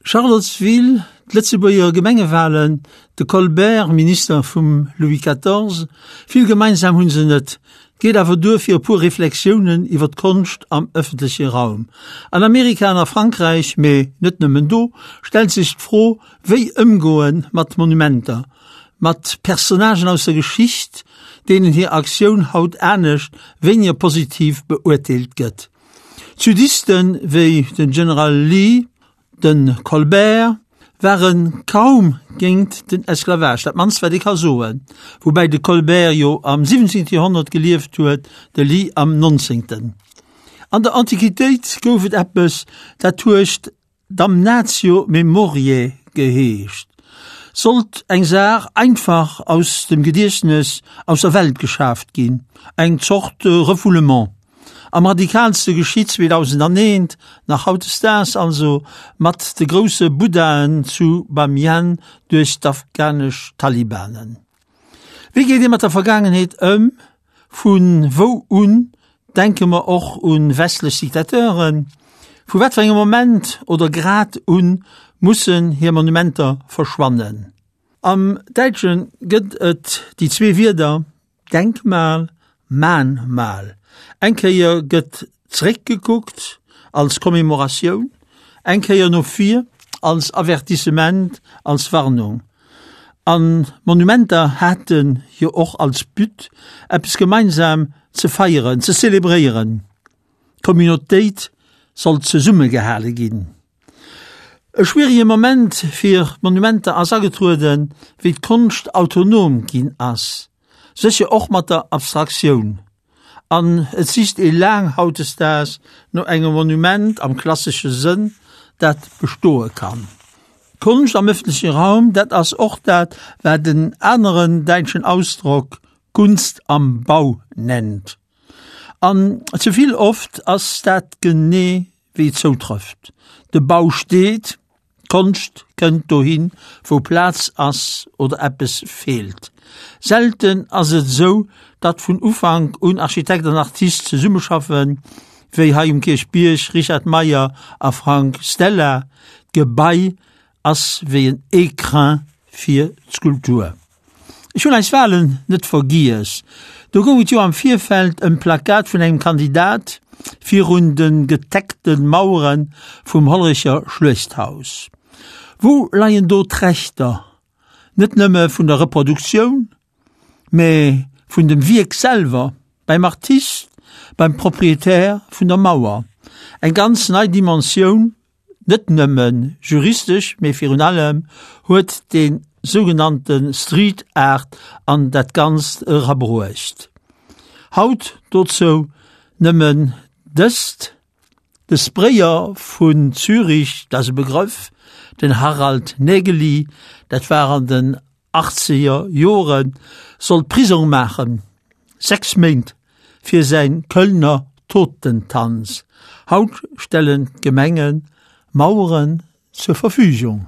Charlottesville, d'Lëtzebuerger Gemengewalen, de Colbert, Minister vum Louis XIV, vill gemeinsam hunn se net, geet awer duer fir e puer Reflexiounen iwwer d'Konscht am ëffentleche Raum. An Amerika an a Frankräich, mee net nëmmen do, stellt sech d'Fro, wéi ëmgoe mat Monumenter, mat Personnagen aus der Geschicht, deenen hir Aktioun haut anescht, wéiniger positiv beurteelt gëtt. D'Sudisten wéi den General Lee, de Colbert ware kaum géint den Esclavage, dat mannst wat ee ka soen, woubäi de Colbert jo am 17. Joerhonnert gelieft huet, de Lee am 19. An der Antiquitéit gouf et eppes, dat huet Damnatio memoriae geheescht, sollt eng Saach einfach aus dem Gediechtnes aus der Welt geschaaft ginn, eng Zort Refoulement. Am radikalste geschitt 2001, nach hautdesdaags also, mat de grousse Buddhaen zu Bamiyan duerch d'afghanesch Talibanen. Wéi geet ee mat der Vergaangenheet ëm? Vu wou un denke mer och un westlech Diktateuren? Vu wat fir engem Moment oder Grad un mussen hir Monumenter verschwannen? Am Däitsche gëtt et déi zwee Wierder Denkmal, Mahnmal. Eng Kéier gëtt zeréckgekuckt als Commémoratioun, eng Kéier no vir als Avertissement, als Warnung. An d'Monumenter hate jo och als But, eppes gemeinsam ze feieren, ze zelebréieren. D'Communautéit sollt zesummegehale ginn. E schwierige Moment fir d'Monumenter ass agetrueden, wéi d'Konscht autonom ginn ass, sécher och mat der Abstraktioun. An et sicht ee laang hautdesdaags no engem Monument am klassesche Sënn, dat bestoe kann. Konscht am ëffentleche Raum, dat ass och dat, wat en aneren däitschen Ausdrock Kunst am Bau nennt. An ze vill oft ass dat genee wéi et zoutrëfft. De Bau steet, D'Konscht kënnt dohin, wou Plaz ass oder eppes feelt. Selten ass et esou, datt vun Ufank un Architekt an Artist zesummeschaffen, wéi hei um Kierchbierg Richard Meyer a Frank Stella. D'Gebai ass wéi en Écrin fir d'Skulptur. Ech hunn eis Walen net vergiess. Do goung et jo am Virfeld ëm d'Plakat vun engem Kandidat virun de geteckte Mauere vum Hollerecher Schluechthaus. Wou leien do d'Rechter? Net nëmme vun der Reproduktioun, mä vun dem Wierk selwer, beim Artist, beim Proprietär vun der Mauer. Eng ganz nei Dimensioun Net nëmme juristesch, mee virun allem huet dee sougenannte Street Art an dat Ganzt erabruecht. Haut dozou nëmmen dëst, De Sprayer vun Zürich, dat ass e Begrëff, den Harald Nägeli, dat war an den achtzeger Joren, sollt Prisong maachen, 6 Méint fir säin Kölner Totentanz. Haut stellen d'Gemenge Maueren zur Verfügung.